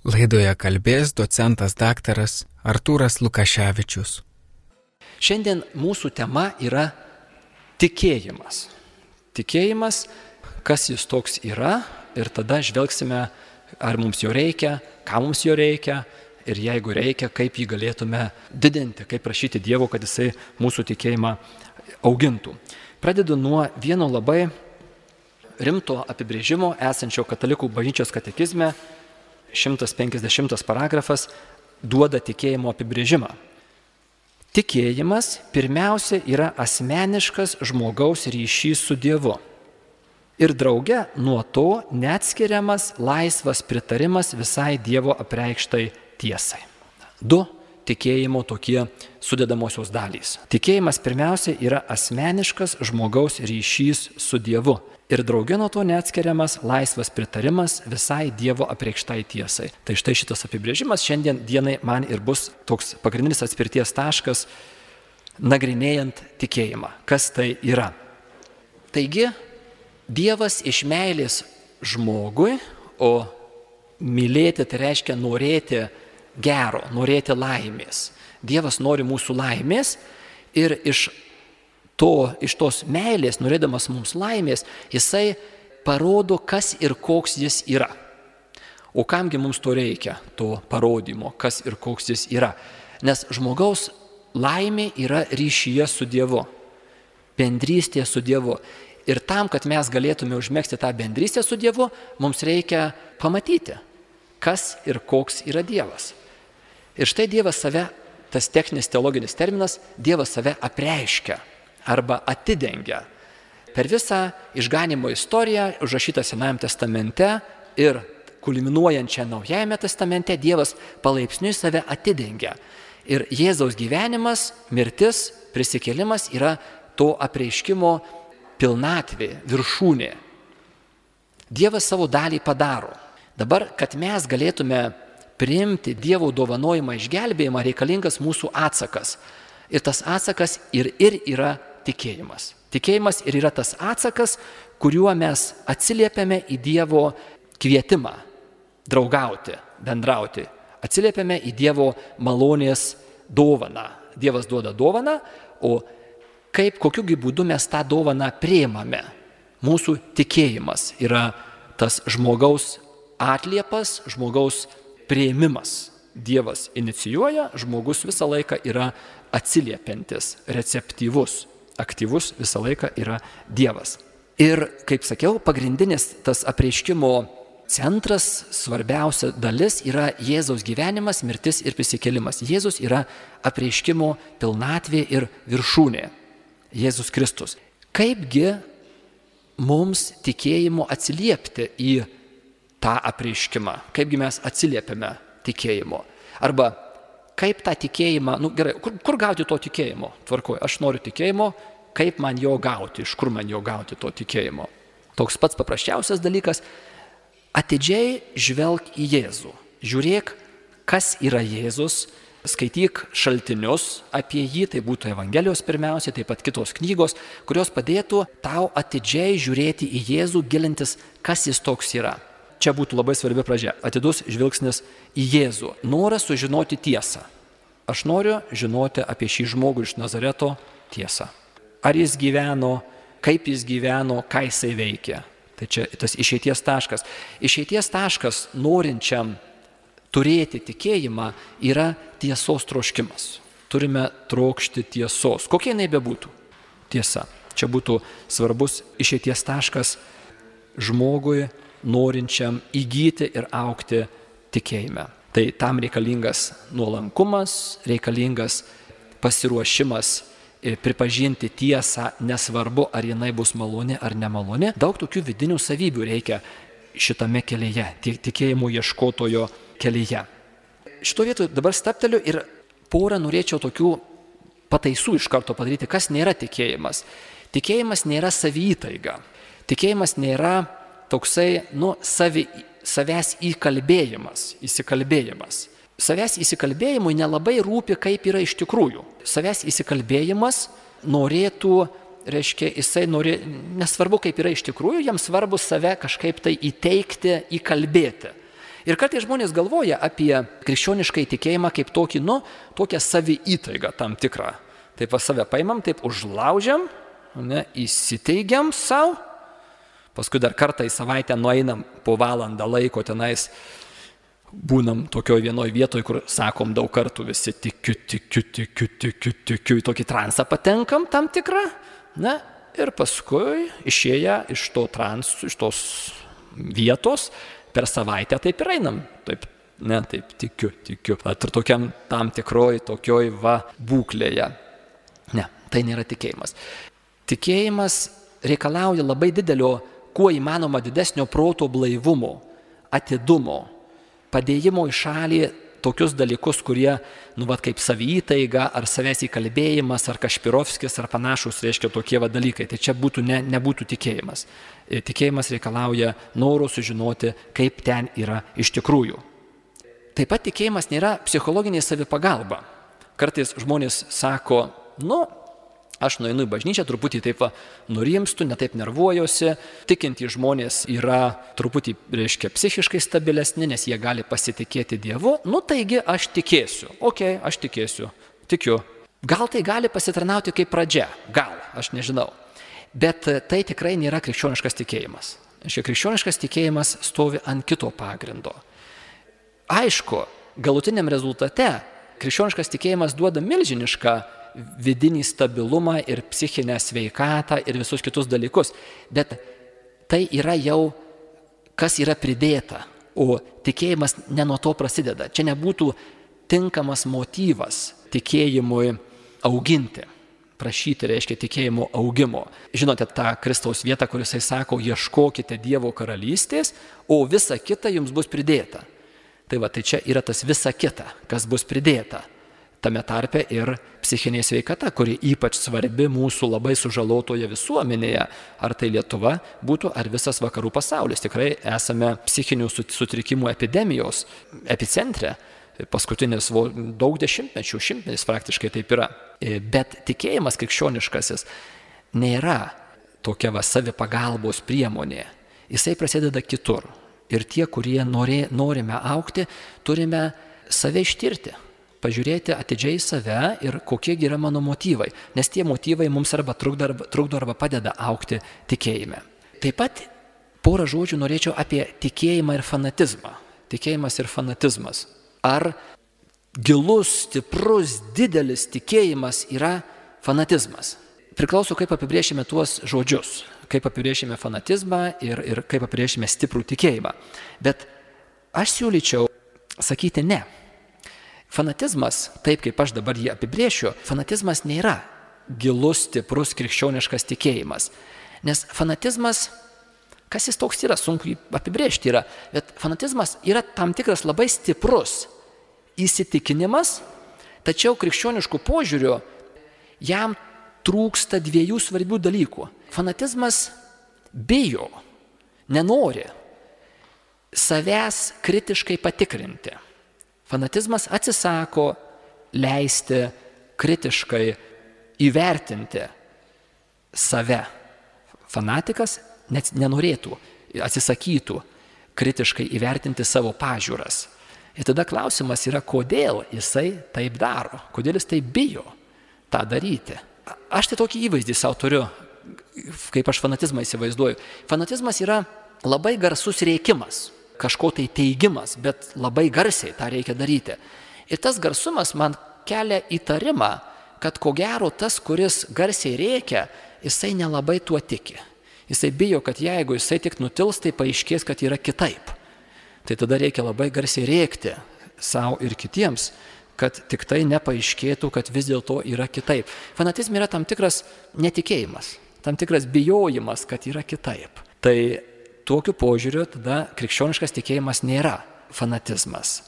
Laidoje kalbės docentas daktaras Artūras Lukaševičius. Šiandien mūsų tema yra tikėjimas. Tikėjimas, kas jis toks yra, ir tada žvelgsime, ar mums jo reikia, ką mums jo reikia, ir jeigu reikia, kaip jį galėtume didinti, kaip prašyti Dievo, kad jisai mūsų tikėjimą augintų. Pradedu nuo vieno labai rimto apibrėžimo esančio Katalikų bažnyčios katekizme. 150 paragrafas duoda tikėjimo apibrėžimą. Tikėjimas pirmiausia yra asmeniškas žmogaus ryšys su Dievu. Ir drauge nuo to neatskiriamas laisvas pritarimas visai Dievo apreikštai tiesai. Du tikėjimo tokie sudedamosios dalys. Tikėjimas pirmiausia yra asmeniškas žmogaus ryšys su Dievu. Ir drauge nuo to neatskiriamas laisvas pritarimas visai Dievo apreikštai tiesai. Tai štai šitas apibrėžimas šiandien dienai man ir bus toks pagrindinis atspirties taškas, nagrinėjant tikėjimą. Kas tai yra? Taigi, Dievas iš meilės žmogui, o mylėti tai reiškia norėti gero, norėti laimės. Dievas nori mūsų laimės ir iš tos meilės, norėdamas mums laimės, jisai parodo, kas ir koks jis yra. O kamgi mums to reikia, to parodymo, kas ir koks jis yra. Nes žmogaus laimė yra ryšyje su Dievu, bendrystė su Dievu. Ir tam, kad mes galėtume užmegzti tą bendrystę su Dievu, mums reikia pamatyti, kas ir koks yra Dievas. Ir štai Dievas save, tas techninis teologinis terminas, Dievas save apreiškia arba atidengia. Per visą išganymo istoriją, užrašytą Senajame testamente ir kulminuojančią Naujajame testamente, Dievas palaipsniui save atidengia. Ir Jėzaus gyvenimas, mirtis, prisikėlimas yra to apreiškimo pilnatvė, viršūnė. Dievas savo dalį padaro. Dabar, kad mes galėtume priimti Dievo dovanojimą išgelbėjimą, reikalingas mūsų atsakas. Ir tas atsakas ir yra tikėjimas. Tikėjimas ir yra tas atsakas, kuriuo mes atsiliepiame į Dievo kvietimą draugauti, bendrauti. Atsiliepiame į Dievo malonės dovaną. Dievas duoda dovaną, o kokiugi būdu mes tą dovaną priimame. Mūsų tikėjimas yra tas žmogaus atliepas, žmogaus priėmimas. Dievas inicijuoja, žmogus visą laiką yra atsiliepiantis, receptyvus, aktyvus visą laiką yra Dievas. Ir, kaip sakiau, pagrindinis tas apreiškimo centras, svarbiausia dalis yra Jėzaus gyvenimas, mirtis ir prisikėlimas. Jėzus yra apreiškimo pilnatvė ir viršūnė. Jėzus Kristus. Kaipgi mums tikėjimu atsiliepti į tą apreiškimą? Kaipgi mes atsiliepiame tikėjimo? Arba kaip tą tikėjimą, gerai, kur gauti to tikėjimo? Tvarkoj, aš noriu tikėjimo, kaip man jo gauti, iš kur man jo gauti to tikėjimo? Toks pats paprasčiausias dalykas, atidžiai žvelk į Jėzų. Žiūrėk, kas yra Jėzus, skaityk šaltinius apie jį, tai būtų Evangelijos pirmiausia, taip pat kitos knygos, kurios padėtų tau atidžiai žiūrėti į Jėzų, gilintis, kas jis toks yra. Čia būtų labai svarbi pradžia. Atidus žvilgsnis į Jėzų. Noras sužinoti tiesą. Aš noriu žinoti apie šį žmogų iš Nazareto tiesą. Ar jis gyveno, kaip jis gyveno, ką jisai veikė. Tai čia tas išeities taškas. Išeities taškas norinčiam turėti tikėjimą yra tiesos troškimas. Turime trokšti tiesos. Kokia jinai bebūtų? Tiesa. Čia būtų svarbus išeities taškas žmogui norinčiam įgyti ir augti tikėjime. Tai tam reikalingas nuolankumas, reikalingas pasiruošimas pripažinti tiesą, nesvarbu, ar jinai bus maloni ar nemaloni. Daug tokių vidinių savybių reikia šitame kelyje, tikėjimo ieškotojo kelyje. Šito vietoje dabar stapteliu ir porą norėčiau tokių pataisų iš karto padaryti, kas nėra tikėjimas. Tikėjimas nėra savytaiga. Tikėjimas nėra toksai, savęs įsikalbėjimas. Savęs įsikalbėjimui nelabai rūpi, kaip yra iš tikrųjų. Savęs įsikalbėjimas norėtų, nesvarbu, kaip yra iš tikrųjų, jam svarbu save kažkaip tai įteikti, įkalbėti. Ir kartais žmonės galvoja apie krikščionišką įtikėjimą kaip tokį, tokią saviįtaigą tam tikrą. Taip save paimam, taip užlaužiam, įsiteigiam savo, paskui dar kartą į savaitę nueinam po valandą laiko tenais, būnam tokioj vienoj vietoj, kur sakom daug kartų visi tikiu, į tokį transą patenkam tam tikrą, ir paskui išėję iš tos vietos, per savaitę taip ir einam, taip tikiu. Ir tokiam tam tikroj tokioj būklėje. Ne, tai nėra tikėjimas. Tikėjimas reikalauja labai didelio, kuo įmanoma didesnio proto blaivumo, atidumo, padėjimo į šalį tokius dalykus, kurie, kaip saviįtaiga, ar savęs įkalbėjimas, ar Kašpirovskis, ar panašus, reiškia tokie dalykai. Tai čia nebūtų tikėjimas. Tikėjimas reikalauja noro sužinoti, kaip ten yra iš tikrųjų. Taip pat tikėjimas nėra psichologinė savipagalba. Kartais žmonės sako, aš nueinu į bažnyčią, truputį taip nurimstu, netaip nervuojuosi, tikintys žmonės yra truputį, psichiškai stabilesni, nes jie gali pasitikėti Dievu, taigi aš tikėsiu, aš tikėsiu, tikiu. Gal tai gali pasitarnauti kaip pradžia, gal, aš nežinau, bet tai tikrai nėra krikščioniškas tikėjimas. Krikščioniškas tikėjimas stovi ant kito pagrindo. Aišku, galutiniam rezultate krikščioniškas tikėjimas duoda milžinišką vidinį stabilumą ir psichinę sveikatą ir visus kitus dalykus. Bet tai yra jau, kas yra pridėta, o tikėjimas ne nuo to prasideda. Čia nebūtų tinkamas motyvas tikėjimui auginti, prašyti, reiškia tikėjimo augimo. Žinote tą Kristaus vietą, kur jisai sako, ieškokite Dievo karalystės, o visa kita jums bus pridėta. Tai čia yra tas visa kita, kas bus pridėta. Tame tarpe ir psichinė sveikata, kuri ypač svarbi mūsų labai sužalotoje visuomenėje, ar tai Lietuva būtų, ar visas vakarų pasaulis. Tikrai esame psichinių sutrikimų epidemijos epicentre, paskutinis daug dešimtmečių, šimtmetis praktiškai taip yra. Bet tikėjimas krikščioniškasis nėra tokia savipagalbos priemonė. Jisai prasideda kitur. Ir tie, kurie norime augti, turime save ištirti. Pažiūrėti atidžiai save ir kokie yra mano motyvai, nes tie motyvai mums arba trukdo arba padeda augti tikėjime. Taip pat porą žodžių norėčiau apie tikėjimą ir fanatizmą. Tikėjimas ir fanatizmas. Ar gilus, stiprus, didelis tikėjimas yra fanatizmas? Priklauso, kaip apibrėšime tuos žodžius, kaip apibrėšime fanatizmą ir kaip apibrėšime stiprų tikėjimą. Bet aš siūlyčiau sakyti ne. Fanatizmas, taip kaip aš dabar jį apibrėšiu, fanatizmas nėra gilus, stiprus krikščioniškas tikėjimas. Nes fanatizmas, kas jis toks yra, sunku apibrėžti yra, bet fanatizmas yra tam tikras labai stiprus įsitikinimas, tačiau krikščioniškų požiūrių jam trūksta dviejų svarbių dalykų. Fanatizmas bijo, nenori savęs kritiškai patikrinti. Fanatizmas atsisako leisti kritiškai įvertinti save. Fanatikas net nenorėtų, atsisakytų kritiškai įvertinti savo pažiūras. Ir tada klausimas yra, kodėl jisai taip daro, kodėl jis taip bijo tą daryti. Aš tai tokį įvaizdį savo turiu, kaip aš fanatizmą įsivaizduoju. Fanatizmas yra labai garsus rėkimas. Kažko tai teigimas, bet labai garsiai tą reikia daryti. Ir tas garsumas man kelia įtarimą, kad ko gero tas, kuris garsiai rėkia, jisai nelabai tuo tiki. Jisai bijo, kad jeigu jisai tik nutils, tai paaiškės, kad yra kitaip. Tai tada reikia labai garsiai rėkti savo ir kitiems, kad tik tai nepaaiškėtų, kad vis dėlto yra kitaip. Fanatizme yra tam tikras netikėjimas, tam tikras bijojimas, kad yra kitaip. Tai tokiu požiūriu tada krikščioniškas tikėjimas nėra fanatizmas.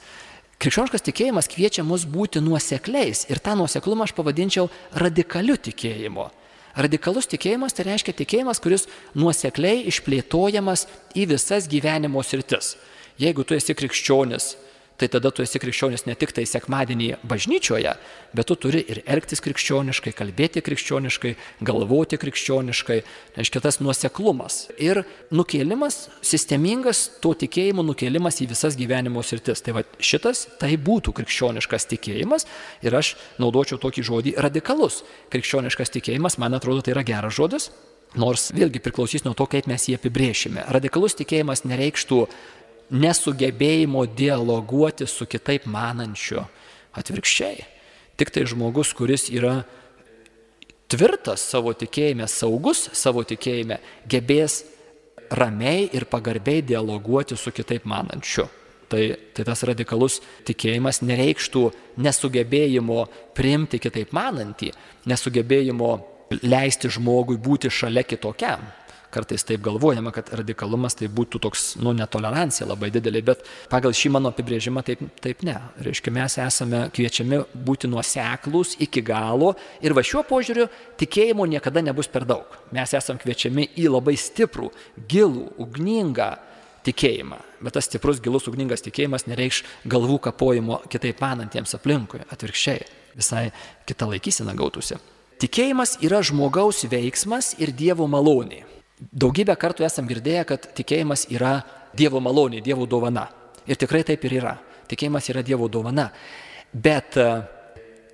Krikščioniškas tikėjimas kviečia mus būti nuosekliais ir tą nuoseklumą aš pavadinčiau radikaliu tikėjimu. Radikalus tikėjimas tai reiškia tikėjimas, kuris nuosekliai išplėtojamas į visas gyvenimo sritis. Jeigu tu esi krikščionis, tai tada tu esi krikščionis ne tik tai sekmadienį bažnyčioje, bet tu turi ir elgtis krikščioniškai, kalbėti krikščioniškai, galvoti krikščioniškai, reiškia tas nuoseklumas. Ir nukėlimas, sistemingas to tikėjimo nukėlimas į visas gyvenimo sritis. Tai va šitas, tai būtų krikščioniškas tikėjimas ir aš naudočiau tokį žodį radikalus. Krikščioniškas tikėjimas, man atrodo, tai yra geras žodis, nors vėlgi priklausys nuo to, kaip mes jį apibrėšime. Radikalus tikėjimas nereikštų nesugebėjimo dialoguoti su kitaip manančiu. Atvirkščiai. Tik tai žmogus, kuris yra tvirtas savo tikėjime, saugus savo tikėjime, gebės ramiai ir pagarbiai dialoguoti su kitaip manančiu. Tai tas radikalus tikėjimas nereikštų nesugebėjimo priimti kitaip manantį, nesugebėjimo leisti žmogui būti šalia kitokiam. Kartais taip galvojama, kad radikalumas tai būtų toks, netolerancija labai didelė, bet pagal šį mano apibrėžimą taip ne. Reiškia, mes esame kviečiami būti nuoseklūs iki galo ir va šiuo požiūriu tikėjimo niekada nebus per daug. Mes esame kviečiami į labai stiprų, gilų, ugningą tikėjimą. Bet tas stiprus, gilus, ugningas tikėjimas nereikš galvų kapojimo kitaip manantiems aplinkui. Atvirkščiai, visai kita laikysena gautųsi. Tikėjimas yra žmogaus veiksmas ir Dievo malonė. Daugybę kartų esam girdėję, kad tikėjimas yra Dievo malonė, Dievo dovana. Ir tikrai taip ir yra. Tikėjimas yra Dievo dovana. Bet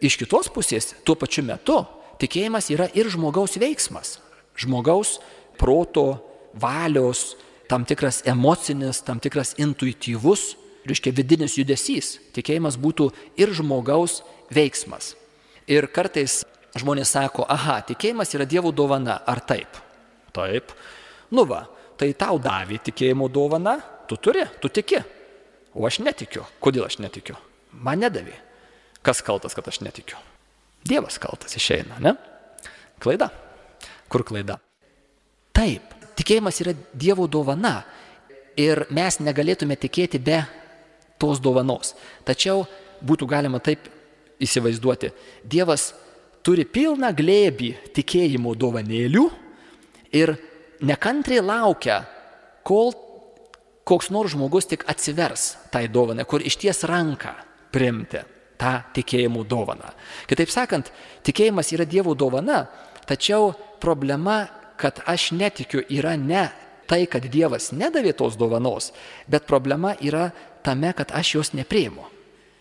iš kitos pusės, tuo pačiu metu, tikėjimas yra ir žmogaus veiksmas. Žmogaus proto, valios, tam tikras emocinis, tam tikras intuityvus, reiškia vidinis judesys. Tikėjimas būtų ir žmogaus veiksmas. Ir kartais žmonės sako, tikėjimas yra Dievo dovana, ar taip? Taip. Tai tau davė tikėjimo dovana, tu turi, tu tiki. O aš netikiu. Kodėl aš netikiu? Man nedavė. Kas kaltas, kad aš netikiu? Dievas kaltas išeina, ne? Klaida. Kur klaida? Taip, tikėjimas yra Dievo dovana ir mes negalėtume tikėti be tos dovanos. Tačiau būtų galima taip įsivaizduoti. Dievas turi pilną glėbį tikėjimo dovanėlių ir nekantriai laukia, kol koks nors žmogus tik atsivers tai dovanai, kur išties ranką priimti tą tikėjimo dovaną. Kitaip sakant, tikėjimas yra Dievo dovana, tačiau problema, kad aš netikiu, yra ne tai, kad Dievas nedavė tos dovanos, bet problema yra tame, kad aš jos nepriimu.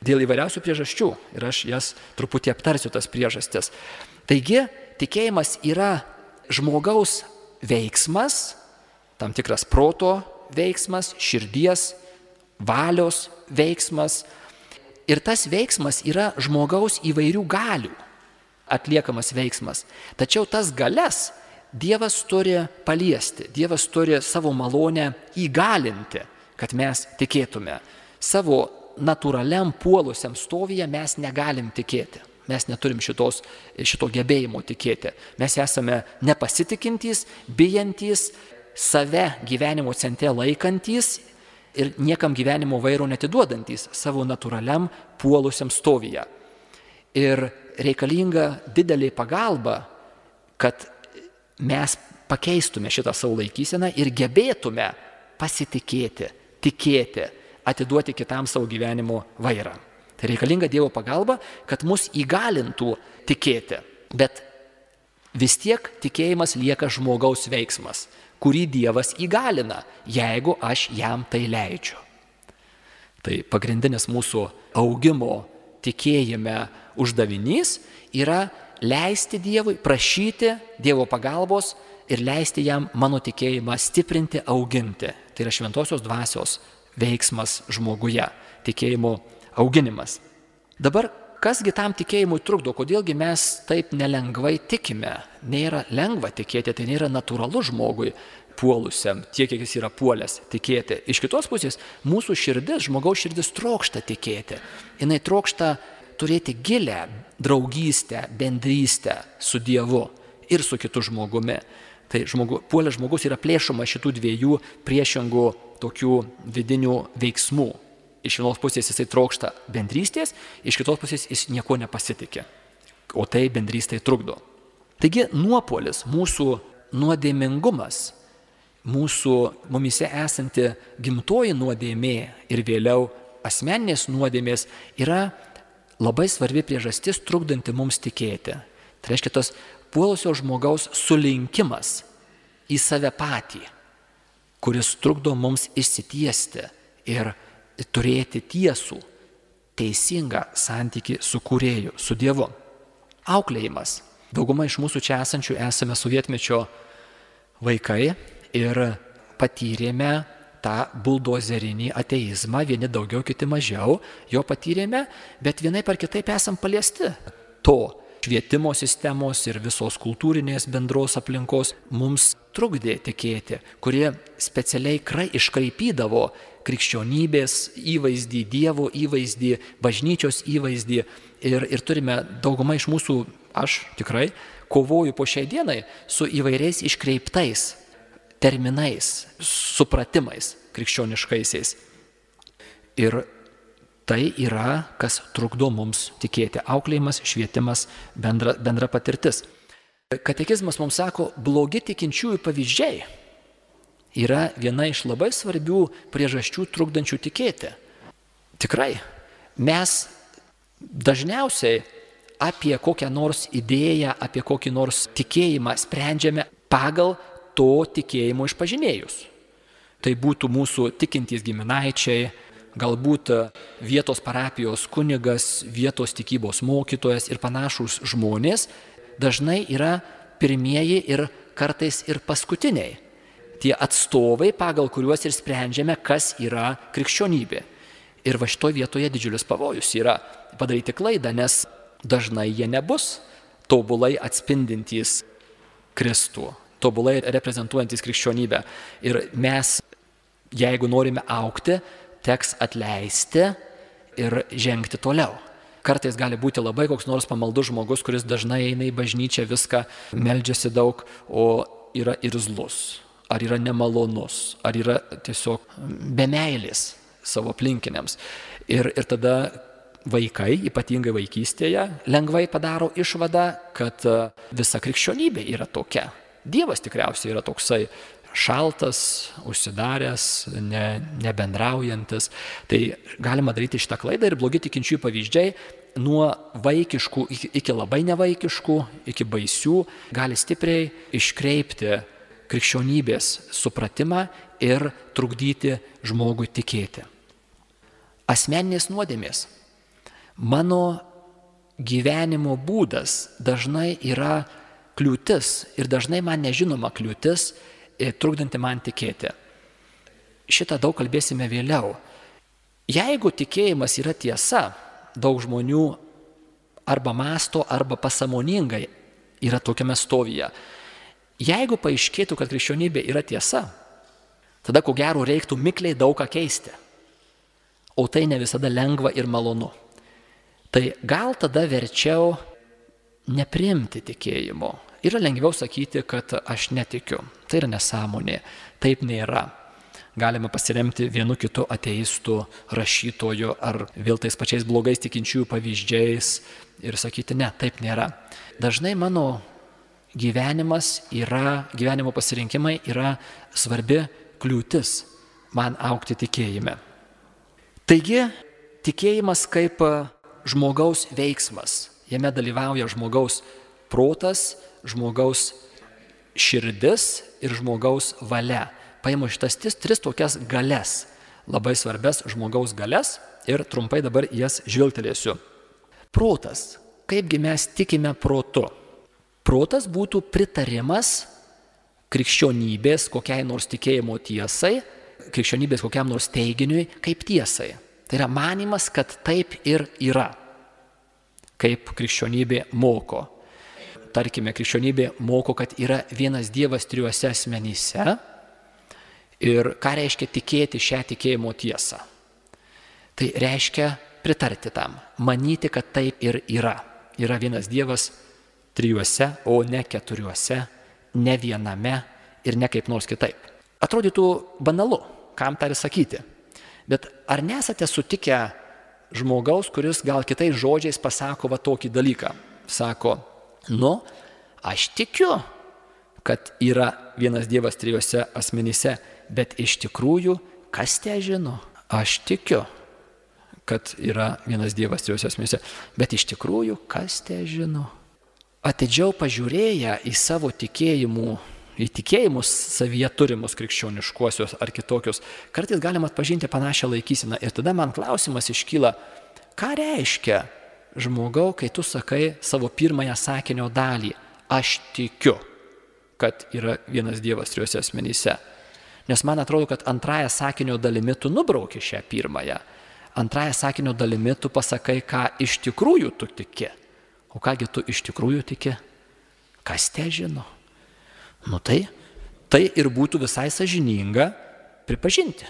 Dėl įvairiausių priežasčių ir aš jas truputį aptarsiu tas priežastis. Taigi, tikėjimas yra žmogaus veiksmas, tam tikras proto veiksmas, širdies, valios veiksmas. Ir tas veiksmas yra žmogaus įvairių galių atliekamas veiksmas. Tačiau tas galias Dievas turi paliesti, Dievas turi savo malonę įgalinti, kad mes tikėtume. Savo natūraliam puolusiam stovyje mes negalim tikėti. Mes neturim šito gebėjimo tikėti. Mes esame nepasitikintys, bijantys, save gyvenimo centre laikantys ir niekam gyvenimo vairo netiduodantys savo natūraliam puolusiam stovyje. Ir reikalinga didelė pagalba, kad mes pakeistume šitą savo laikyseną ir gebėtume pasitikėti, tikėti, atiduoti kitam savo gyvenimo vairą. Tai reikalinga Dievo pagalba, kad mus įgalintų tikėti. Bet vis tiek tikėjimas lieka žmogaus veiksmas, kurį Dievas įgalina, jeigu aš jam tai leidžiu. Tai pagrindinis mūsų augimo tikėjime uždavinys yra leisti Dievui, prašyti Dievo pagalbos ir leisti jam mano tikėjimą stiprinti, auginti. Tai yra šventosios dvasios veiksmas žmoguje, tikėjimo auginimas. Dabar, kasgi tam tikėjimui trukdo, kodėlgi mes taip nelengvai tikime? Nėra lengva tikėti, tai nėra natūralu žmogui puolusiam, tiek, kiek jis yra puolęs tikėti. Iš kitos pusės, mūsų širdis, žmogaus širdis trokšta tikėti. Jinai trokšta turėti gilę draugystę, bendrystę su Dievu ir su kitu žmogumi. Tai puolęs žmogus yra plėšoma šitų dviejų priešingų tokių vidinių veiksmų. Iš vienos pusės jisai trokšta bendrystės, iš kitos pusės jis nieko nepasitikė, o tai bendrystė trukdo. Taigi nuopuolis, mūsų nuodėmingumas, mūsų mumise esanti gimtoji nuodėmė ir vėliau asmeninės nuodėmės yra labai svarbi priežastis trukdanti mums tikėti. Tai reiškia tos puolusio žmogaus sulinkimas į save patį, kuris trukdo mums išsitiesti ir turėti tiesų, teisingą santykį su Kūrėju, su Dievu. Auklėjimas. Dauguma iš mūsų čia esančių esame sovietmečio vaikai ir patyrėme tą buldozerinį ateizmą, vieni daugiau, kiti mažiau, jo patyrėme, bet vienaip ar kitaip esam paliesti to. Švietimo sistemos ir visos kultūrinės bendros aplinkos mums trukdė tikėti, kurie specialiai iškraipydavo krikščionybės įvaizdį, Dievo įvaizdį, bažnyčios įvaizdį ir turime dauguma iš mūsų, aš tikrai kovoju po šiai dienai su įvairiais iškreiptais terminais, supratimais krikščioniškaisiais. Ir tai yra, kas trukdo mums tikėti. Auklėjimas, švietimas, bendra patirtis. Katekizmas mums sako, blogi tikinčiųjų pavyzdžiai yra viena iš labai svarbių priežasčių trukdančių tikėti. Tikrai, mes dažniausiai apie kokią nors idėją, apie kokį nors tikėjimą sprendžiame pagal to tikėjimo išpažinėjus. Tai būtų mūsų tikintys giminaičiai, galbūt vietos parapijos kunigas, vietos tikybos mokytojas ir panašūs žmonės dažnai yra pirmieji ir kartais ir paskutiniai. Tie atstovai, pagal kuriuos ir sprendžiame, kas yra krikščionybė. Ir va šitoje vietoje didžiulis pavojus yra padaryti klaidą, nes dažnai jie nebus tobulai atspindintys Kristų, tobulai reprezentuojantys krikščionybę. Ir mes, jeigu norime augti, teks atleisti ir žengti toliau. Kartais gali būti labai koks nors pamaldus žmogus, kuris dažnai eina į bažnyčią, viską meldžiasi daug, o yra irzlus, ar yra nemalonus, ar yra tiesiog be meilės savo aplinkiniams. Ir tada vaikai, ypatingai vaikystėje, lengvai padaro išvadą, kad visa krikščionybė yra tokia. Dievas tikriausiai yra toksai šaltas, užsidaręs, nebendraujantis. Tai galima daryti šitą klaidą ir blogi tikinčiųjų pavyzdžiai nuo vaikiškų iki labai nevaikiškų, iki baisių, gali stipriai iškreipti krikščionybės supratimą ir trukdyti žmogui tikėti. Asmeninės nuodėmės. Mano gyvenimo būdas dažnai yra kliūtis ir dažnai man nežinoma kliūtis, trukdanti man tikėti. Šitą daug kalbėsime vėliau. Jeigu tikėjimas yra tiesa, daug žmonių arba mąsto, arba pasąmoningai yra tokiame stovyje. Jeigu paaiškėtų, kad krikščionybė yra tiesa, tada ko gero reiktų mikliai daug ką keisti. O tai ne visada lengva ir malonu. Tai gal tada verčiau nepriimti tikėjimo. Yra lengviau sakyti, kad aš netikiu. Tai yra nesąmonė. Taip nėra. Galime pasiremti vienu kitu ateistų, rašytoju ar vėl tais pačiais blogais tikinčiųjų pavyzdžiais ir sakyti, ne, taip nėra. Dažnai mano gyvenimo pasirinkimai yra svarbi kliūtis man augti tikėjime. Taigi, tikėjimas kaip žmogaus veiksmas. Jame dalyvauja žmogaus protas, žmogaus širdis ir žmogaus valia. Paimu šitas tris tokias galias, labai svarbias žmogaus galias ir trumpai dabar jas žvilgtelėsiu. Protas. Kaipgi mes tikime protu? Protas būtų pritarimas krikščionybės kokiai nors tikėjimo tiesai, krikščionybės kokiam nors teiginiui kaip tiesai. Tai yra manimas, kad taip ir yra, kaip krikščionybė moko. Tarkime, krikščionybė moko, kad yra vienas Dievas trijuose asmenyse. Ir ką reiškia tikėti šią tikėjimo tiesą? Tai reiškia pritarti tam, manyti, kad taip ir yra. Yra vienas Dievas trijuose, o ne keturiuose, ne viename ir ne kaip nors kitaip. Atrodytų banalu, kam tą ir sakyti. Bet ar nesate sutikę žmogaus, kuris gal kitais žodžiais pasako va tokį dalyką? Sako, aš tikiu, kad yra vienas Dievas trijuose asmenyse, bet iš tikrųjų, kas te žino? Aš tikiu. kad yra vienas Dievas trijose asmenyse. Bet iš tikrųjų, kas te žino? Atidžiau pažiūrėję į savo tikėjimus savyje turimus krikščioniškuosius ar kitokius, kartais galima atpažinti panašią laikyseną. Ir tada man klausimas iškyla, ką reiškia žmogau, kai tu sakai savo pirmąją sakinio dalį, aš tikiu, kad yra vienas Dievas trijose asmenyse. Nes man atrodo, kad antrąją sakinio dalimi tu nubrauki šią pirmąją. Antrąją sakinio dalimi tu pasakai, ką iš tikrųjų tu tiki. O kągi tu iš tikrųjų tiki? Kas te žino? Tai ir būtų visai sąžininga pripažinti.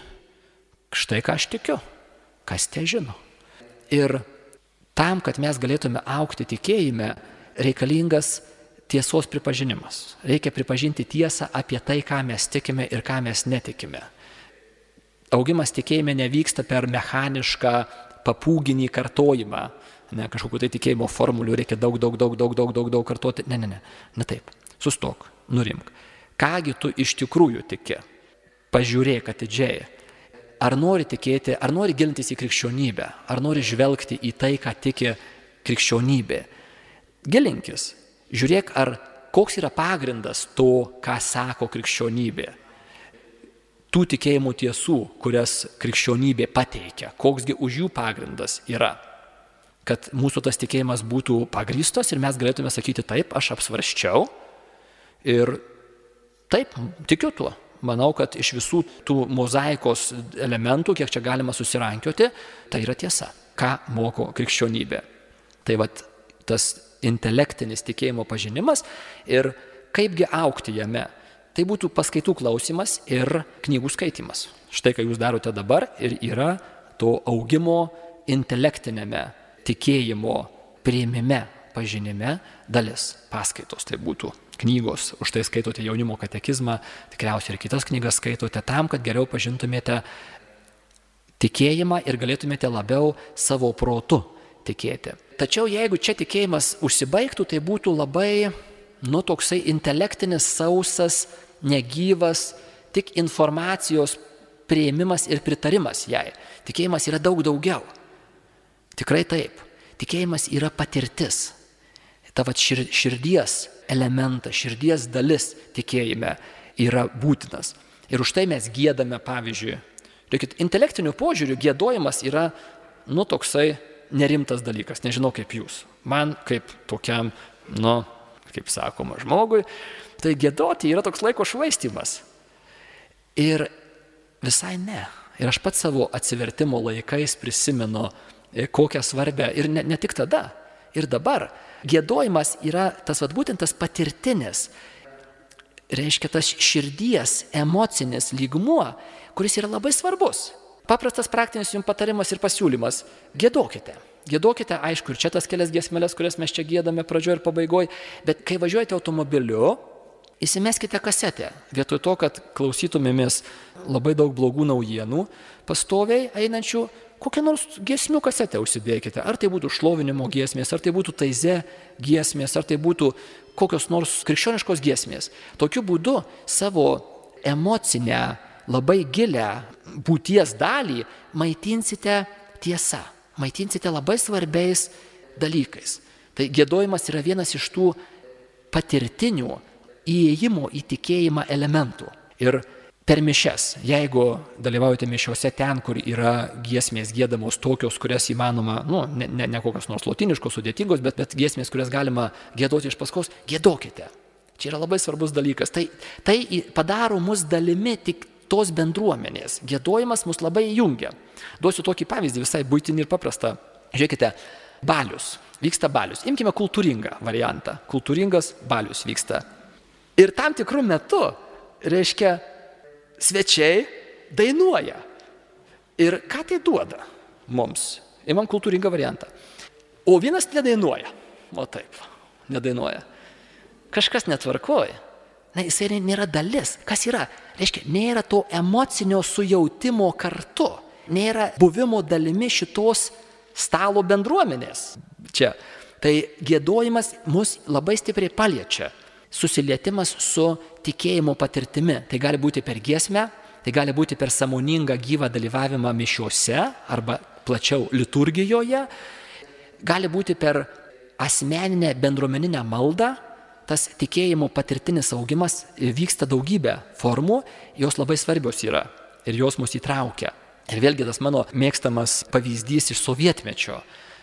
Štai ką aš tikiu. Kas te žino? Ir tam, kad mes galėtume augti tikėjime, reikalingas tiesos pripažinimas. Reikia pripažinti tiesą apie tai, ką mes tikime ir ką mes netikime. Augimas tikėjime nevyksta per mechanišką papūginį kartojimą. Ne, kažkokiu tai tikėjimo formulių reikia daug kartoti. Ne taip. Sustok, nurimk. Kągi tu iš tikrųjų tiki? Pažiūrėk atidžiai. Ar nori tikėti, ar nori gilintis į krikščionybę, ar nori žvelgti į tai, ką tiki krikščionybė. Gilinkis. Žiūrėk, koks yra pagrindas to, ką sako krikščionybė. Tų tikėjimų tiesų, kurias krikščionybė pateikia, koksgi už jų pagrindas yra. Kad mūsų tas tikėjimas būtų pagrįstos ir mes galėtume sakyti taip, aš apsvarščiau ir taip, tikiu tuo. Manau, kad iš visų tų mozaikos elementų, kiek čia galima susirankioti, tai yra tiesa, ką moko krikščionybė. Tai vat tas intelektinis tikėjimo pažinimas ir kaipgi augti jame. Tai būtų paskaitų klausimas ir knygų skaitimas. Štai, ką jūs darote dabar ir yra to augimo intelektinėme tikėjimo priėmime, pažinime dalis paskaitos. Tai būtų knygos, už tai skaitote jaunimo katekizmą, tikriausiai ir kitas knygas skaitote tam, kad geriau pažintumėte tikėjimą ir galėtumėte labiau savo protu tikėti. Tačiau jeigu čia tikėjimas užsibaigtų, tai būtų labai, toksai intelektinis, sausas, negyvas, tik informacijos priėmimas ir pritarimas jai. Tikėjimas yra daug daugiau. Tikrai taip. Tikėjimas yra patirtis. Tavo širdies elementas, širdies dalis tikėjime yra būtinas. Ir už tai mes giedame, pavyzdžiui. Intelektiniu požiūriu giedojimas yra, toksai nerimtas dalykas. Nežinau kaip jūs. Man kaip tokiam, kaip sakoma, žmogui, tai giedoti yra toks laiko švaistymas. Ir visai ne. Ir aš pats savo atsivertimo laikais prisimenu, kokią svarbę, ir ne tik tada, ir dabar. Giedojimas yra būtent tas patirtinis, reiškia tas širdies emocinis lygmuo, kuris yra labai svarbus. Paprastas praktinis jums patarimas ir pasiūlymas – giedokite. Giedokite, aišku, ir čia tas kelias giesmeles, kurias mes čia giedame pradžioje ir pabaigoje, bet kai važiuojate automobiliu, įsimeskite kasetę. Vietoj to, kad klausytumėmės labai daug blogų naujienų, pastoviai einančių, kokią nors giesmių kasetę užsidėkite. Ar tai būtų šlovinimo giesmės, ar tai būtų taize giesmės, ar tai būtų kokios nors krikščioniškos giesmės. Tokiu būdu savo emocinę, labai gilę būties dalį maitinsite tiesa, maitinsite labai svarbiais dalykais. Tai giedojimas yra vienas iš tų patirtinių įėjimo į tikėjimą elementų. Ir per mišias, jeigu dalyvaujate mišiuose ten, kur yra giesmės giedamos tokios, kurias įmanoma, ne kokios nors lotiniškos, sudėtingos, bet giesmės, kurias galima giedoti iš paskos, giedokite. Čia yra labai svarbus dalykas. Tai padaro mus dalimi tik tos bendruomenės. Giedojimas mus labai jungia. Duosiu tokį pavyzdį, visai buitinį ir paprastą. Žiūrėkite, balius. Vyksta balius. Imkime kultūringą variantą. Kultūringas balius vyksta. Ir tam tikrų metu, reiškia, svečiai dainuoja. Ir ką tai duoda mums? Imam kultūringą variantą. O vienas nedainuoja. O taip, nedainuoja. Kažkas netvarkoja. Jisai nėra dalis. Kas yra? Reiškia, nėra to emocinio sujautimo kartu. Nėra buvimo dalimi šitos stalo bendruomenės. Čia. Tai giedojimas mus labai stipriai paliečia. Susilietimas su tikėjimo patirtimi. Tai gali būti per giesmę, tai gali būti per sąmoningą gyvą dalyvavimą mišiuose arba plačiau liturgijoje, gali būti per asmeninę bendruomeninę maldą. Tas tikėjimo patirtinis augimas vyksta daugybę formų, jos labai svarbios yra ir jos mus įtraukia. Ir vėlgi tas mano mėgstamas pavyzdys iš sovietmečio.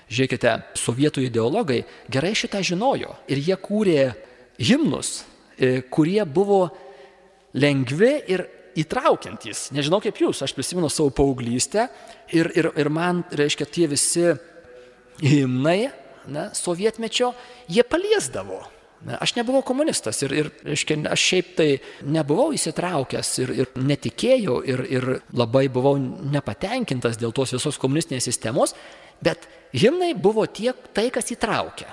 Žiūrėkite, sovietų ideologai gerai šitą žinojo ir jie kūrė himnus, kurie buvo lengvi ir įtraukiantys. Nežinau kaip jūs, aš prisimenu savo paauglystę ir man, reiškia, tie visi himnai, sovietmečio, jie paliesdavo. Aš nebuvau komunistas ir reiškia, aš šiaip tai nebuvau įsitraukęs ir netikėjau ir labai buvau nepatenkintas dėl tos visos komunistinės sistemos, bet himnai buvo tai, kas įtraukia.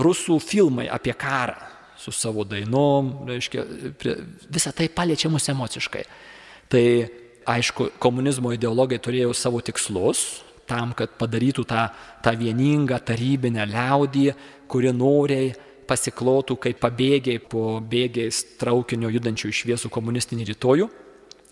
Rusų filmai apie karą su savo dainom, reiškia, visą tai paliečia mus emociškai. Tai aišku, komunizmo ideologai turėjo savo tikslus tam, kad padarytų tą vieningą tarybinę liaudį, kuri noriai pasiklotų kaip pabėgiai po bėgiais traukinio judančių į šviesų komunistinį rytojų.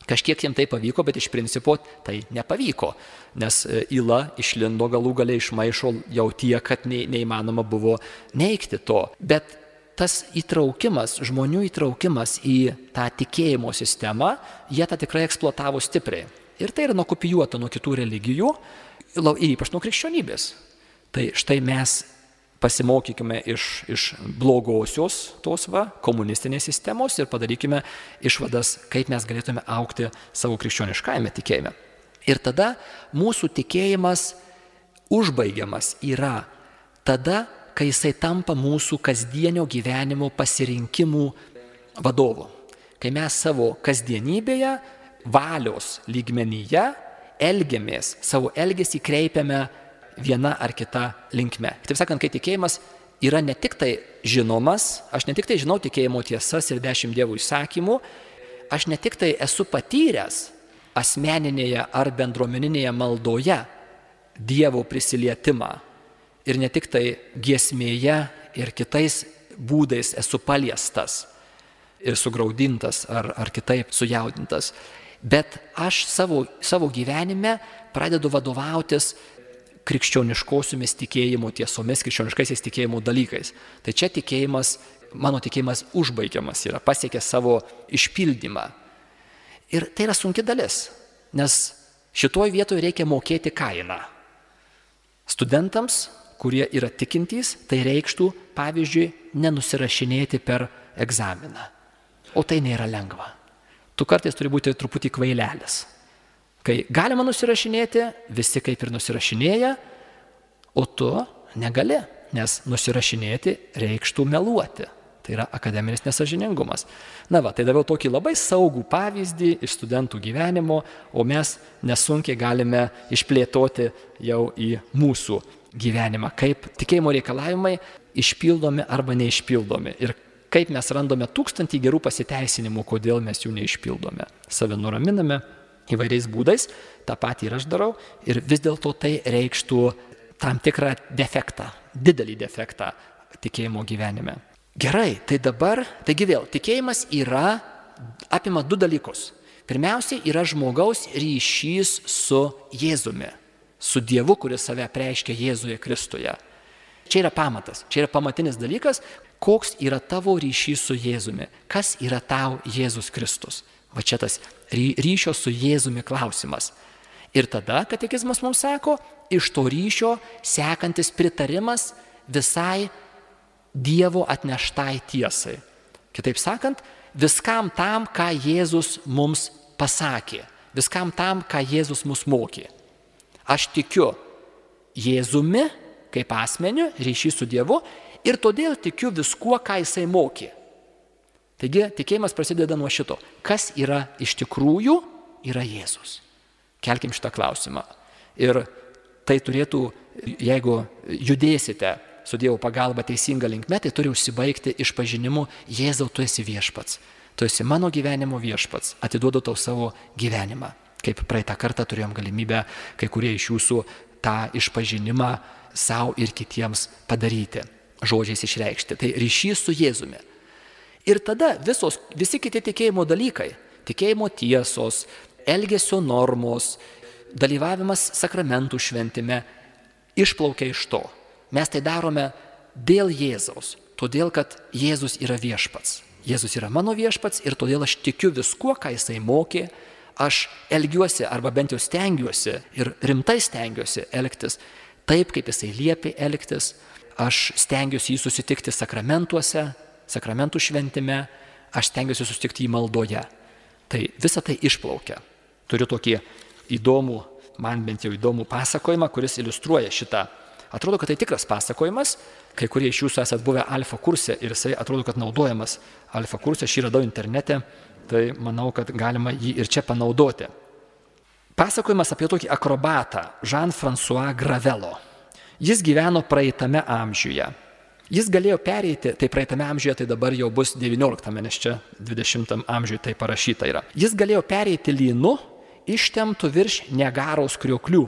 Kažkiek jiems tai pavyko, bet iš principo tai nepavyko, nes yla išlindo galų gale iš maišo jau tiek, kad neįmanoma buvo neigti to. Bet tas įtraukimas, žmonių įtraukimas į tą tikėjimo sistemą, jie tą tikrai eksploatavo stipriai. Ir tai yra nukopijuota nuo kitų religijų, ypač nuo krikščionybės. Tai štai mes pasimokykime iš blogosios tos komunistinės sistemos ir padarykime išvadas, kaip mes galėtume augti savo krikščioniškajame tikėjime. Ir tada mūsų tikėjimas užbaigiamas yra tada, kai jisai tampa mūsų kasdienio gyvenimo pasirinkimų vadovu. Kai mes savo kasdienybėje, valios lygmenyje elgiamės, savo elgesį kreipiame viena ar kita linkme. Taip sakant, kai tikėjimas yra ne tik tai žinomas, aš ne tik tai žinau tikėjimo tiesas ir 10 Dievo įsakymų, aš ne tik tai esu patyręs asmeninėje ar bendruomeninėje maldoje Dievo prisilietimą ir ne tik tai giesmėje ir kitais būdais esu paliestas ir sugraudintas ar kitaip sujaudintas, bet aš savo gyvenime pradedu vadovautis krikščioniškosiomis tikėjimo tiesomis, krikščioniškaisiais tikėjimo dalykais. Tai čia mano tikėjimas užbaigiamas yra, pasiekia savo išpildymą. Ir tai yra sunki dalis, nes šitoj vietoje reikia mokėti kainą. Studentams, kurie yra tikintys, tai reikštų, pavyzdžiui, nenusirašinėti per egzaminą. O tai nėra lengva. Tu kartais turi būti truputį kvailelis. Kai galima nusirašinėti, visi kaip ir nusirašinėja, o tu negali, nes nusirašinėti reikštų meluoti. Tai yra akademinis nesąžiningumas. Tai daviau tokį labai saugų pavyzdį iš studentų gyvenimo, o mes nesunkiai galime išplėtoti jau į mūsų gyvenimą, kaip tikėjimo reikalavimai išpildomi arba neišpildomi ir kaip mes randame 1000 gerų pasiteisinimų, kodėl mes jų neišpildome. Save nuraminame įvairiais būdais, tą patį ir aš darau, ir vis dėlto tai reikštų tam tikrą defektą, didelį defektą tikėjimo gyvenime. Gerai, tai dabar, taigi vėl, tikėjimas apima 2 dalykus. Pirmiausia, yra žmogaus ryšys su Jėzumi, su Dievu, kuris save apreiškia Jėzuje Kristuje. Čia yra pamatas, čia yra pamatinis dalykas, koks yra tavo ryšys su Jėzumi, kas yra tau Jėzus Kristus. Va čia tas ryšio su Jėzumi klausimas. Ir tada katekizmas mums sako, iš to ryšio sekantis pritarimas visai Dievo atneštai tiesai. Kitaip sakant, viskam tam, ką Jėzus mums pasakė, viskam tam, ką Jėzus mus mokė. Aš tikiu Jėzumi kaip asmeniu, ryšys su Dievu, ir todėl tikiu viskuo, ką jisai mokė. Taigi tikėjimas prasideda nuo šito. Kas yra iš tikrųjų, yra Jėzus. Kelkim šitą klausimą. Ir tai turėtų, jeigu judėsite su Dievo pagalba teisinga linkme, tai turi užsibaigti išpažinimu: Jėzau, tu esi viešpats. Tu esi mano gyvenimo viešpats. Atiduodu tau savo gyvenimą. Kaip praeitą kartą turėjom galimybę kai kurie iš jūsų tą išpažinimą savo ir kitiems padaryti, žodžiais išreikšti. Tai ryšys su Jėzumi. Ir tada visi kiti tikėjimo dalykai, tikėjimo tiesos, elgesio normos, dalyvavimas sakramentų šventime išplaukia iš to. Mes tai darome dėl Jėzaus, todėl kad Jėzus yra viešpats. Jėzus yra mano viešpats ir todėl aš tikiu viskuo, ką jisai mokė, aš elgiuosi arba bent jau stengiuosi ir rimtai stengiuosi elgtis taip, kaip jisai liepė elgtis. Aš stengiuosi jį susitikti sakramentuose, sakramentų šventime, aš stengiuosi susitikti jį maldoje. Tai visa tai išplaukia. Turiu tokį įdomų, man bent jau įdomų pasakojimą, kuris iliustruoja šitą. Atrodo, kad tai tikras pasakojimas, kai kurie iš jūsų esat buvę alfa kurse ir jisai atrodo, kad naudojamas alfa kurse, aš jį radau internete, tai manau, kad galima jį ir čia panaudoti. Pasakojimas apie tokį akrobatą Jean-François Gravelo. Jis gyveno praeitame amžiuje. Jis galėjo pereiti, tai praeitame amžiuje, tai dabar jau bus 19, nes čia 20 amžiuje tai parašyta yra. Jis galėjo pereiti lynu ištemptų virš Niagaros krioklių.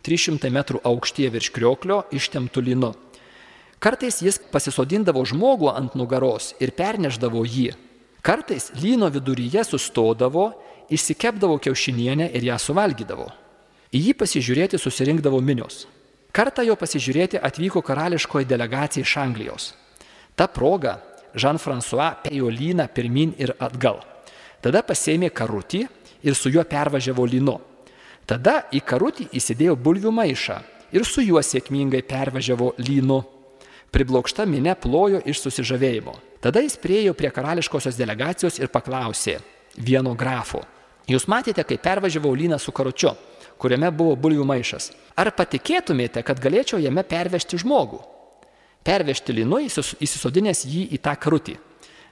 300 metrų aukštyje virš krioklio ištemptų lynu. Kartais jis pasisodindavo žmogų ant nugaros ir perneždavo jį. Kartais lyno viduryje sustodavo, išsikepdavo kiaušinienę ir ją suvalgydavo. Į jį pasižiūrėti susirinkdavo minios. Kartą jo pasižiūrėti atvyko karališkoji delegacija iš Anglijos. Ta proga Jean-François pėjo lyną pirmin ir atgal. Tada pasėmė karutį ir su juo pervažiavo lynu. Tada į karutį įsidėjo bulvių maišą ir su juo sėkmingai pervažiavo lynu. Priblokšta minia plojo iš susižavėjimo. Tada jis priėjo prie karališkosios delegacijos ir paklausė vieno grafo: jūs matėte, kaip pervažiavau lyną su karučiu, kuriame buvo bulvių maišas. Ar patikėtumėte, kad galėčiau jame pervežti žmogų? Pervežti lynu įsisodinęs jį į tą karutį.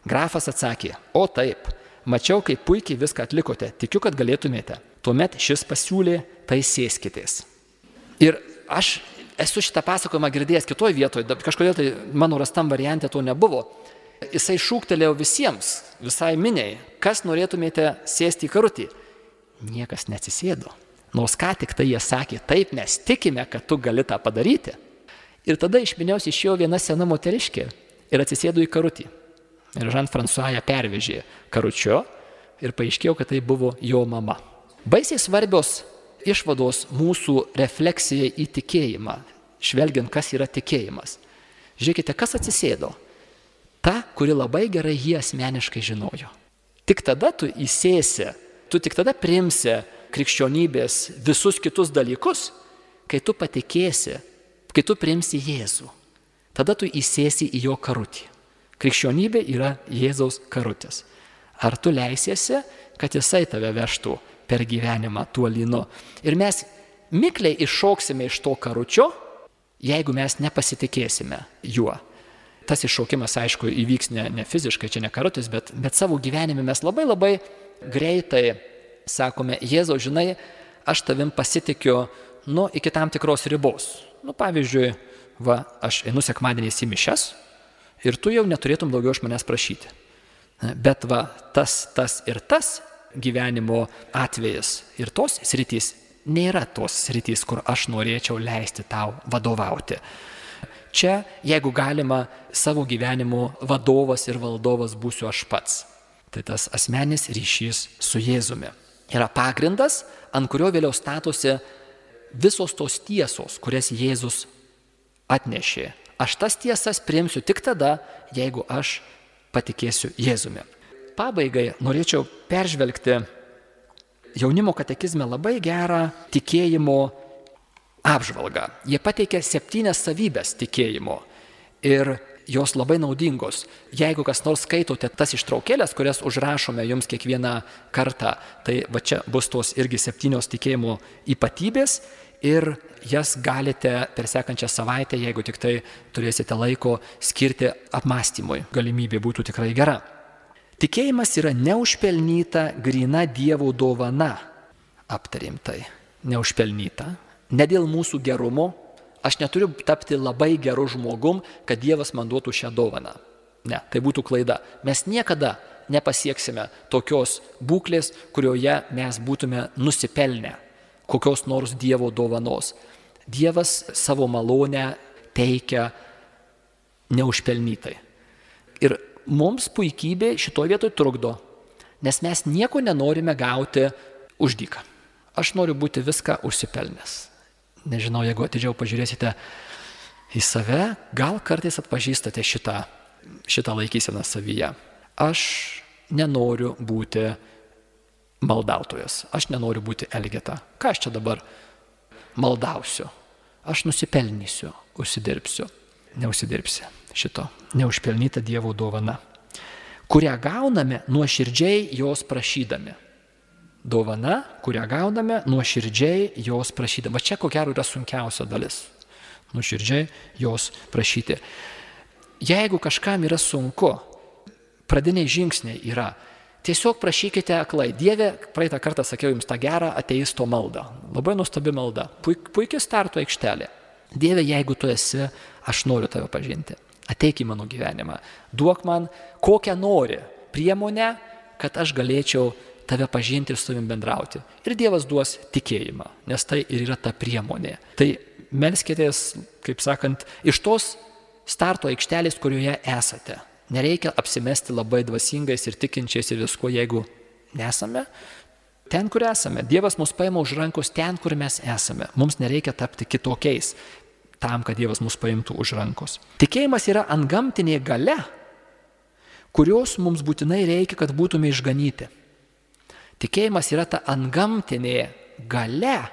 Grafas atsakė: o taip, mačiau, kaip puikiai viską atlikote, tikiu, kad galėtumėte. Tuomet šis pasiūlė: tai sėskitės. Ir aš esu šitą pasakojimą girdėjęs kitoje vietoje, kažkodėl tai mano rastam variante to nebuvo. Jisai šūktelėjo visiems, visai miniai: kas norėtumėte sėsti į karutį? Niekas neatsisėdo. Nors ką tik tai jie sakė: taip, mes tikime, kad tu gali tą padaryti. Ir tada iš minios išėjo viena sena moteriškė ir atsisėdo į karutį. Ir Jean-François ją pervežė karučiu ir paaiškėjo, kad tai buvo jo mama. Baisiai svarbios išvados mūsų refleksijai į tikėjimą, žvelgiant, kas yra tikėjimas. Žiūrėkite, kas atsisėdo. Ta, kuri labai gerai jį asmeniškai žinojo. Tik tada tu įsėsi, tu tik tada priimsi krikščionybės visus kitus dalykus, kai tu patikėsi, kai tu priimsi Jėzų. Tada tu įsėsi į jo karutį. Krikščionybė yra Jėzaus karutis. Ar tu leisiesi, kad jisai tave vežtų per gyvenimą tuo lynu? Ir mes mikliai iššoksime iš to karučio, jeigu mes nepasitikėsime juo. Tas iššaukimas, aišku, įvyks ne fiziškai, čia ne karutis, bet savo gyvenime mes labai greitai sakome: Jėzau, žinai, aš tavim pasitikiu, iki tam tikros ribos. Pavyzdžiui, aš einu sekmadieniais į mišias ir tu jau neturėtum daugiau iš manęs prašyti. Bet tas ir tas gyvenimo atvejas ir tos sritys nėra tos sritys, kur aš norėčiau leisti tau vadovauti. Čia, jeigu galima, savo gyvenimo vadovas ir valdovas būsiu aš pats. Tai tas asmeninis ryšys su Jėzumi yra pagrindas, ant kurio vėliau statosi visos tos tiesos, kurias Jėzus atnešė. Aš tas tiesas priimsiu tik tada, jeigu aš patikėsiu Jėzumi. Pabaigai norėčiau peržvelgti jaunimo katekizme labai gerą tikėjimo apžvalgą. Jie pateikia 7 savybės tikėjimo ir jos labai naudingos. Jeigu kas nors skaitote tas ištraukėlės, kurias užrašome jums kiekvieną kartą, tai čia bus tos irgi 7 tikėjimo ypatybės ir jas galite per sekančią savaitę, jeigu tik tai turėsite laiko, skirti apmąstymui. Galimybė būtų tikrai gera. Tikėjimas yra neužpelnyta, gryna Dievo dovana. Aptarėm tai. Neužpelnyta. Ne dėl mūsų gerumo. Aš neturiu tapti labai geru žmogum, kad Dievas man duotų šią dovaną. Ne, tai būtų klaida. Mes niekada nepasieksime tokios būklės, kurioje mes būtume nusipelnę kokios nors Dievo dovanos. Dievas savo malonę teikia neužpelnytai. Ir mums puikybė šitoje vietoje trukdo, nes mes nieko nenorime gauti už dyką. aš noriu būti viską užsipelnęs. Nežinau, jeigu atidžiau pažiūrėsite į save, gal kartais atpažįstate šitą laikyseną savyje. Aš nenoriu būti maldautojas, aš nenoriu būti elgeta. Ką aš čia dabar maldausiu? Aš nusipelnysiu, užsidirbsiu. Neužsidirbsi šito. Neužpelnyta Dievo dovana, kurią gauname nuoširdžiai jos prašydami. Dovana, kurią gauname nuoširdžiai jos prašydami. Va čia ko gero yra sunkiausia dalis. Nuoširdžiai jos prašyti. Jeigu kažkam yra sunku, pradiniai žingsniai yra, tiesiog prašykite aklai. Dieve, praeitą kartą sakiau jums tą gerą ateisto maldą. Labai nuostabi malda. Puikia starto aikštelė. Dieve, jeigu tu esi, aš noriu tave pažinti. Ateik į mano gyvenimą. Duok man kokią nori priemonę, kad aš galėčiau tave pažinti ir su tavim bendrauti. Ir Dievas duos tikėjimą, nes tai ir yra ta priemonė. Tai melskitės, kaip sakant, iš tos starto aikštelės, kurioje esate. Nereikia apsimesti labai dvasingais ir tikinčiais ir visko, jeigu nesame ten, kur esame. Dievas mus paima už rankos ten, kur mes esame. Mums nereikia tapti kitokiais tam, kad Dievas mus paimtų už rankos. Tikėjimas yra antgamtinė galia, kurios mums būtinai reikia, kad būtume išganyti. Tikėjimas yra ta antgamtinė galia,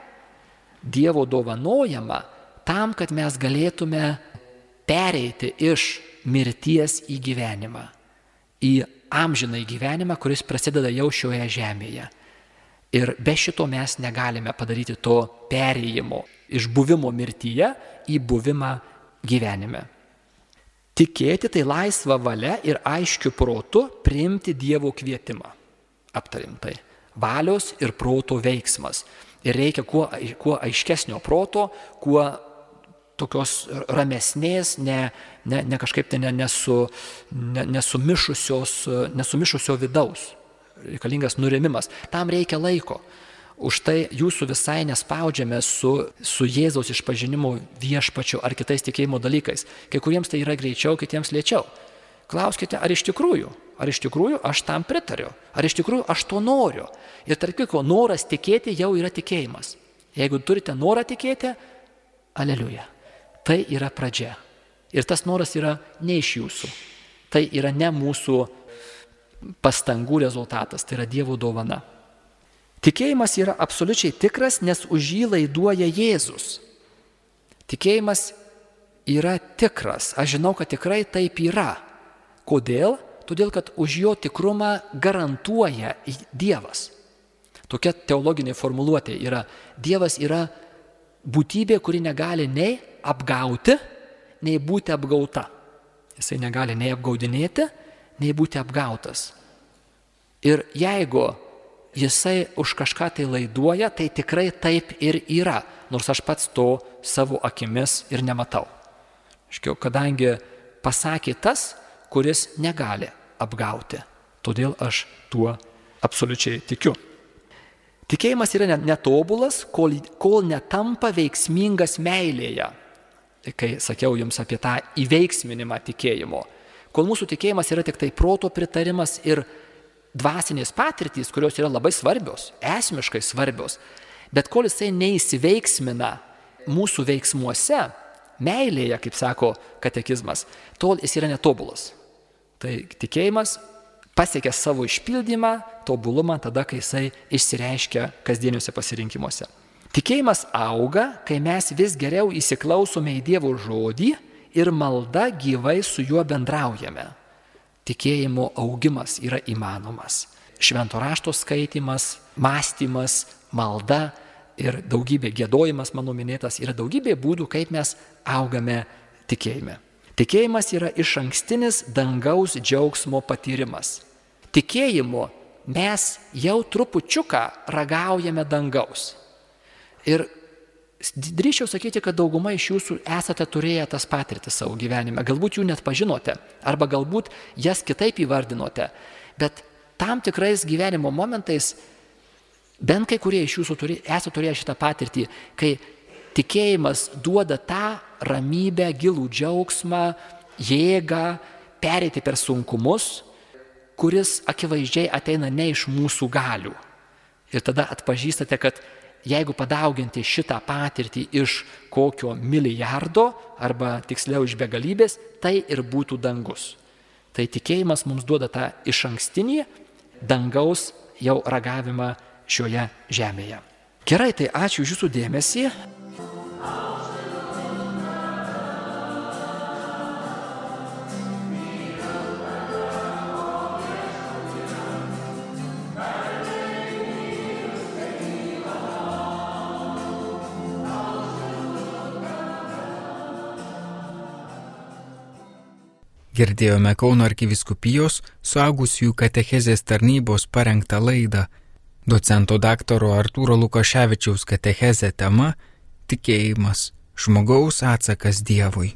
Dievo dovanojama tam, kad mes galėtume pereiti iš mirties į gyvenimą, į amžiną gyvenimą, kuris prasideda jau šioje žemėje. Ir be šito mes negalime padaryti to perėjimo iš buvimo mirtyje į buvimą gyvenime. Tikėti tai laisva valia ir aiškiu protu priimti Dievo kvietimą. Aptarim tai. Valios ir proto veiksmas. Ir reikia kuo aiškesnio proto, kuo tokios ramesnės, ne kažkaip tai nesumišusio vidaus. Reikalingas nurimimas. Tam reikia laiko. Už tai jūsų visai nespaudžiame su Jėzaus išpažinimo viešpačiu ar kitais tikėjimo dalykais. Kai kuriems tai yra greičiau, kitiems lėčiau. Klauskite, ar iš tikrųjų aš tam pritariu, ar iš tikrųjų aš to noriu. Ir tarp kitko, noras tikėti jau yra tikėjimas. Jeigu turite norą tikėti, aleliuja. Tai yra pradžia. Ir tas noras yra ne iš jūsų. Tai yra ne mūsų pastangų rezultatas, tai yra Dievo dovana. Tikėjimas yra absoliučiai tikras, nes už jį laiduoja Jėzus. Tikėjimas yra tikras. Aš žinau, kad tikrai taip yra. Kodėl? Todėl, kad už jo tikrumą garantuoja Dievas. Tokia teologinė formuluotė yra. Dievas yra būtybė, kuri negali nei apgauti, nei būti apgauta. Jisai negali nei apgaudinėti, nei būti apgautas. Ir jeigu jisai už kažką tai laiduoja, tai tikrai taip ir yra, nors aš pats to savo akimis ir nematau. Kadangi pasakė tas, kuris negali apgauti. Todėl aš tuo absoliučiai tikiu. Tikėjimas yra netobulas, kol netampa veiksmingas meilėje. Kai sakiau jums apie tą įveiksminimą tikėjimo. Kol mūsų tikėjimas yra tik tai proto pritarimas ir dvasinės patirtys, kurios yra labai svarbios, esmiškai svarbios, bet kol jisai neįsiveiksmina mūsų veiksmuose, meilėje, kaip sako katekizmas, tol jis yra netobulas. Tai tikėjimas pasiekia savo išpildymą, tobulumą tada, kai jisai išsireiškia kasdieniuose pasirinkimuose. Tikėjimas auga, kai mes vis geriau įsiklausome į Dievo žodį ir malda gyvai su juo bendraujame. Tikėjimo augimas yra įmanomas. Švento rašto skaitimas, mąstymas, malda ir daugybė giedojimas, mano minėtas, yra daugybė būdų, kaip mes augame tikėjime. Tikėjimas yra išankstinis dangaus džiaugsmo patyrimas. Tikėjimu mes jau trupučiuką ragaujame dangaus. Ir drįsčiau sakyti, kad dauguma iš jūsų esate turėję tas patirtis savo gyvenime. Galbūt jų net pažinote, arba galbūt jas kitaip įvardinote. Bet tam tikrais gyvenimo momentais, bent kai kurie iš jūsų esate turėję šitą patirtį, kai tikėjimas duoda tą ramybę, gilų džiaugsmą, jėgą, pereiti per sunkumus, kuris akivaizdžiai ateina ne iš mūsų galių. Ir tada atpažįstate, kad jeigu padauginti šitą patirtį iš kokio milijardo, arba tiksliau iš begalybės, tai ir būtų dangus. Tai tikėjimas mums duoda tą išankstinį dangaus jau ragavimą šioje žemėje. Gerai, tai ačiū už jūsų dėmesį. Girdėjome Kauno arkivyskupijos suaugusiųjų katechezės tarnybos parengtą laidą. Docento daktaro Artūro Lukaševičiaus katechezė tema – Tikėjimas – žmogaus atsakas Dievui.